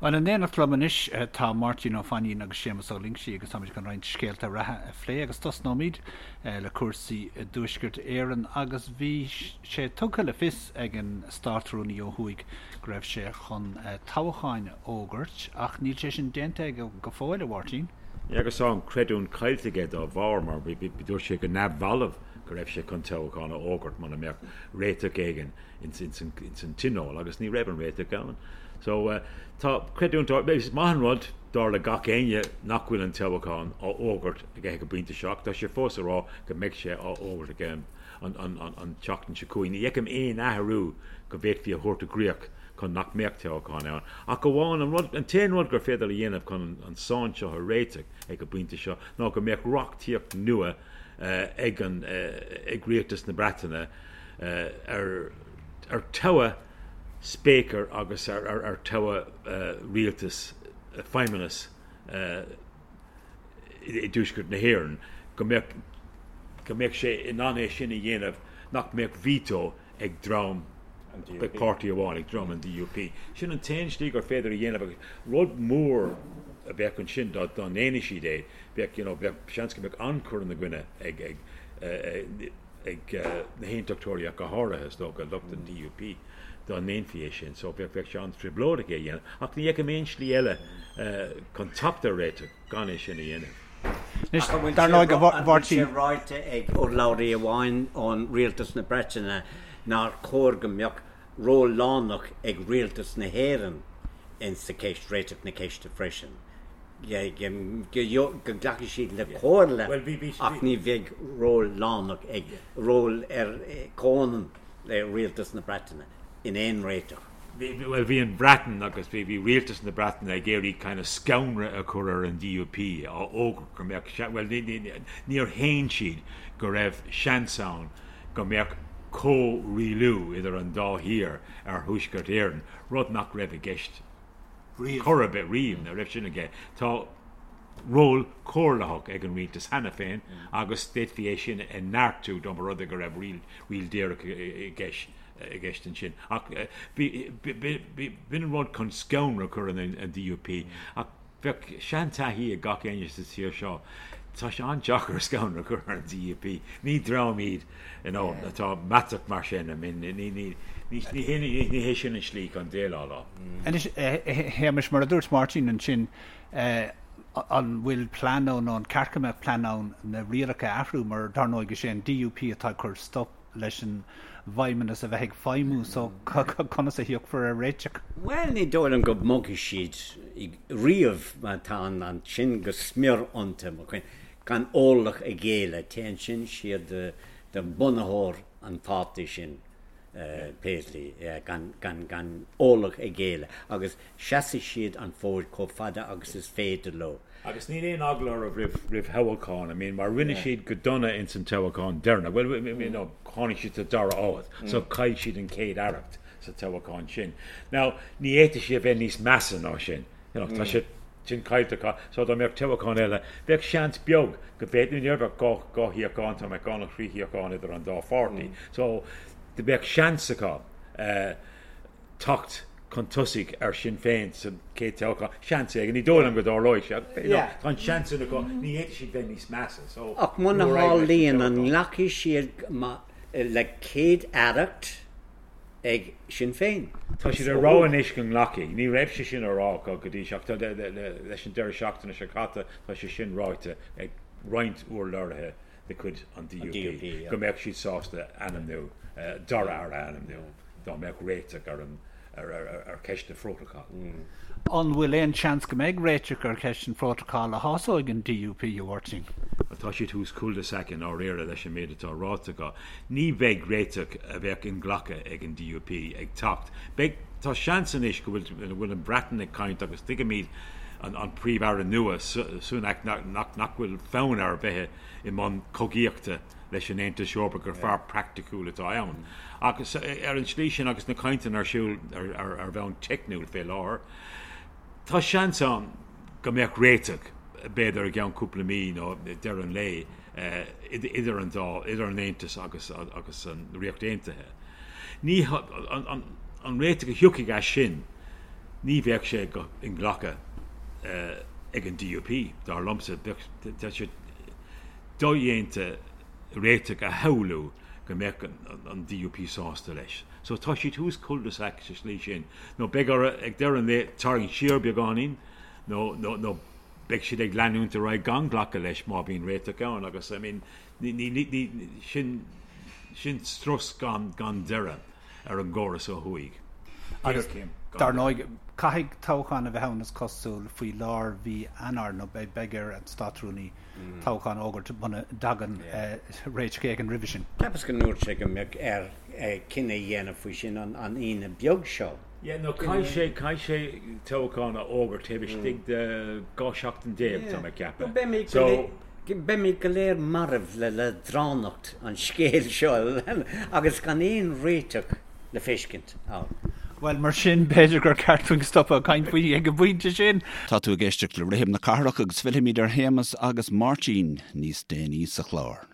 Bhuel, in éineacht liom anois tá Máirtín Ó Fainín agus Séamus Ó Loingsigh agus táimid chun roinnt scéalta reatha a phlé agus tosnóimid le cúrsaí i dTuaisceart Éireann agus bhí sé tugtha le fios ag an Státrúnaí ó thuaidh go raibh sé chun toghcháin a fhógairt ach níl sé sin déanta aige go fóill, a Mháirtín. Agus tá an creidiúint caillte aige dá bharr mar dúirt sé go neamhbhalbh go raibh sé chun toghchán a fhógairt muna mbeadh réiteach éigin ins an tionól agus ní raibh an réiteach ann. So tá creidiúint, is maith an rud dar le gach éinne nach bhfuil an toghchán á fhógairt aige ag an bpointe seo ach tá sé fós ag rá go mbeidh sé á fhógairt aige an tseachtain seo chugainn. Ní fheicim aon athrú go bhféadfaí a thabhairt i gcrích chun nach mbeadh toghchán ann. Ach amháin an rud, an t-aon rud gur féidir a dhéanamh chun an sáinn seo a réiteach ag an bpointe seo ná go mbeadh reachtaíocht nua ag an ag rialtas na Breataine ar ar toghadh Speaker agus ar toghadh rialtas, feidhmeannas i dTuaisceart na hÉireann, go mbeadh go mbeadh sé in ann é sin a dhéanamh, nach mbeadh veto ag dream, ag páirtí amháin, ag dream an DUP. Sin an t-aon slí gur féidir a dhéanamh agus rud mór a bheadh ansin dá ndéanadh siad é, bheadh, you know, bheadh seans go mbeadh an-chur ina gcoinne ag ag ag na hAontachtóirí ach go háirithe, is dócha, lucht an DUP, dá ndéanfaí é sin. So bheadh sé an-trioblóideach é a dhéanamh. Ach ní fheicim aon slí eile chun teacht ar réiteach gan é sin a dhéanamh. Anois, dar ndóigh, a Mháirtín. An bhfuil sé ráite ag urlabhraí amháin ón Rialtas na Breataine nár chóir go mbeadh ról lárnach ag Rialtas na hÉireann in sa cheist, réiteach na ceiste freisin? go nglacfaidh siad le comhairle ach ní bheidh ról lárnach ag, ról ar comhionann le Rialtas na Breataine in aon réiteach. Bhuel, bhí an Bhreatain agus bhí Rialtas na Breataine ag iarraidh kind of scanradh a chur ar an DUP á fhógairt go mbeadh, bhuel, níor shéan siad go raibh seans ann go mbeadh comhrialú idir an dá thír ar Thuaisceart Éireann, rud nach raibh i gceist chor ar bith riamh, ní raibh sin aige. Tá ról comhairleach ag an rialtas cheana féin agus d'fhéadfaí é sin a neartú dá mba rud é go raibh riail díreach i gceist ansin. Ach b'in an rud chun scanradh a chur ar an DUP. Ach Bheadh seantaithí ag gach éinne sa tír seo, tá sé an-deacair scanradh a chur ar an DUP. Ní dream iad you know, atá meatach mar sin, I mean, ní, ní, ní, ní hé, ní hé sin an slí chun déileáil leo. Anois, a Shéamais, mar a dúirt Máirtín ansin, an bhfuil plean ann, nó an ceart go mbeadh plean ann na rialacha a athrú, mar dar ndóigh is é an DUP atá ag cur stop leis an bhFeidhmeannas a bheith ag feidhmiú so conas a thiocfar ar réiteach? Bhuel, ní dóigh liom go mbogfaidh siad riamh mar tá an sin go smior iontu, mo chuimhne, gan orlach a ghéilleadh. Téann sin siar do bhunaitheoir an pháirtí sin, Paisley, gan, gan, gan orlach a ghéilleadh agus seasfaidh siad an fód chomh fada agus is féidir leo. Agus níl aon eagla orthu roimh thoghchán, I mean, mar rinne siad go dona ins an toghchán deireanach, bhuel, you know, tháinig siad sa dara háit, so chaill siad an chéad aireacht sa toghchán sin. Now, ní fhéadfadh sé a bheith níos measa ná sin, you know, tá sé sin caillte acu, so dá mbeadh toghchán eile, bheadh seans beag go bhféadfaí, ní bheadh dhá shuíochán, dá mbeadh dhá nó thrí shuíochán idir an dá pháirtí, so bheadh seans acu teacht chun tosaigh ar Sinn Féin sa chéad toghchán. Seans éigin. Ní dóigh liom go dtarlóidh sé ach you know tá an seans sin acu. Ní fhéadfaidh siad bheith níos measa so Ach muna ní raibh leis an tharlaíonn, an toghchán. nglacfaidh siad le céad-aireacht ag Sinn Féin? Tá siad ag rá anois go nglacfaidh. Ní raibh sé sin á rá acu go dtí seo ach tá leis an deireadh seachtaine seo caite tá sé sin ráite ag roinnt urlabhraithe de chuid an DUP go mbeadh siad sásta ainmniú, dara aire a ainmniú dá mbeadh réiteach ar an ar cheist an phrótacail. An bhfuil aon seans go mbeidh réiteach ar cheist an phrótacail a shásóidh an DUP, a Mháirtín? Tá siad thuas cul-de-sac i ndáiríre leis an méid atá ráite acu. Ní bheidh réiteach a bheadh inghlactha ag an DUP ag teacht. Beidh, tá seans anois go bhfuil go bhfuil an Bhreatain ag caint agus tuigimid an Príomh-Aire nua, Sunak, nach bhfuil fonn air bheith i mbun cogaíochta leis an Aontas Eorpach, gur fear praiticiúil atá ann. Agus ar an tslí sin, agus na cainteanna ar siúl ar bhonn teicniúil fé láthair, tá seans ann go mbeadh réiteach, b'fhéidir i gceann cúpla mí nó deireadh an lae, idir an dá, idir an Aontas agus agus an Ríocht Aontaithe. Ní, an réiteach a thiocfaidh as sin. Ní bheadh sé go inghlactha ag an DUP, dar liomsa. Bheadh tá sé dodhéanta réiteach a shamhlú go mbeadh an DUP sásta leis. So tá siad thuas cul-de-sac sa slí sin. Nó beidh orthu ag deireadh an lae tarraingt siar beagáinín nó nó nó beidh siad ag leanúint ar aghaidh gan glacadh leis má bhíonn réiteach ann agus I mean ní ní ní sin sin strus gan gan deireadh ar an gcóras ó thuaidh. Agus dar ndóigh, caithfidh toghchán a bheith ann is cosúil faoi lár mhí Eanáir nó beidh ar an Státrúnaí toghchán a fhógairt muna dtagann réiteach éigin roimhe sin. Cheapas go ndúirt sé go mbeadh air cinneadh a dhéanamh faoi sin an Aoine beag seo. Yeah, no, caithfidh sé, caithfidh sé toghchán a fhógairt taobh istigh de 12 seachtain, tá mé ag ceapadh. So. Beimid go léir marbh le leadránacht an scéil seo agus gan aon réiteach le feiscint ann. Bhuel, mar sin, b'fhéidir gur ceart dúinn stopadh ag caint faoi ag an bpointe sin. Tá tú ag éisteacht le Rithim na Cathrach agus fillfimid ar Shéamus agus Máirtín níos déanaí sa chlár.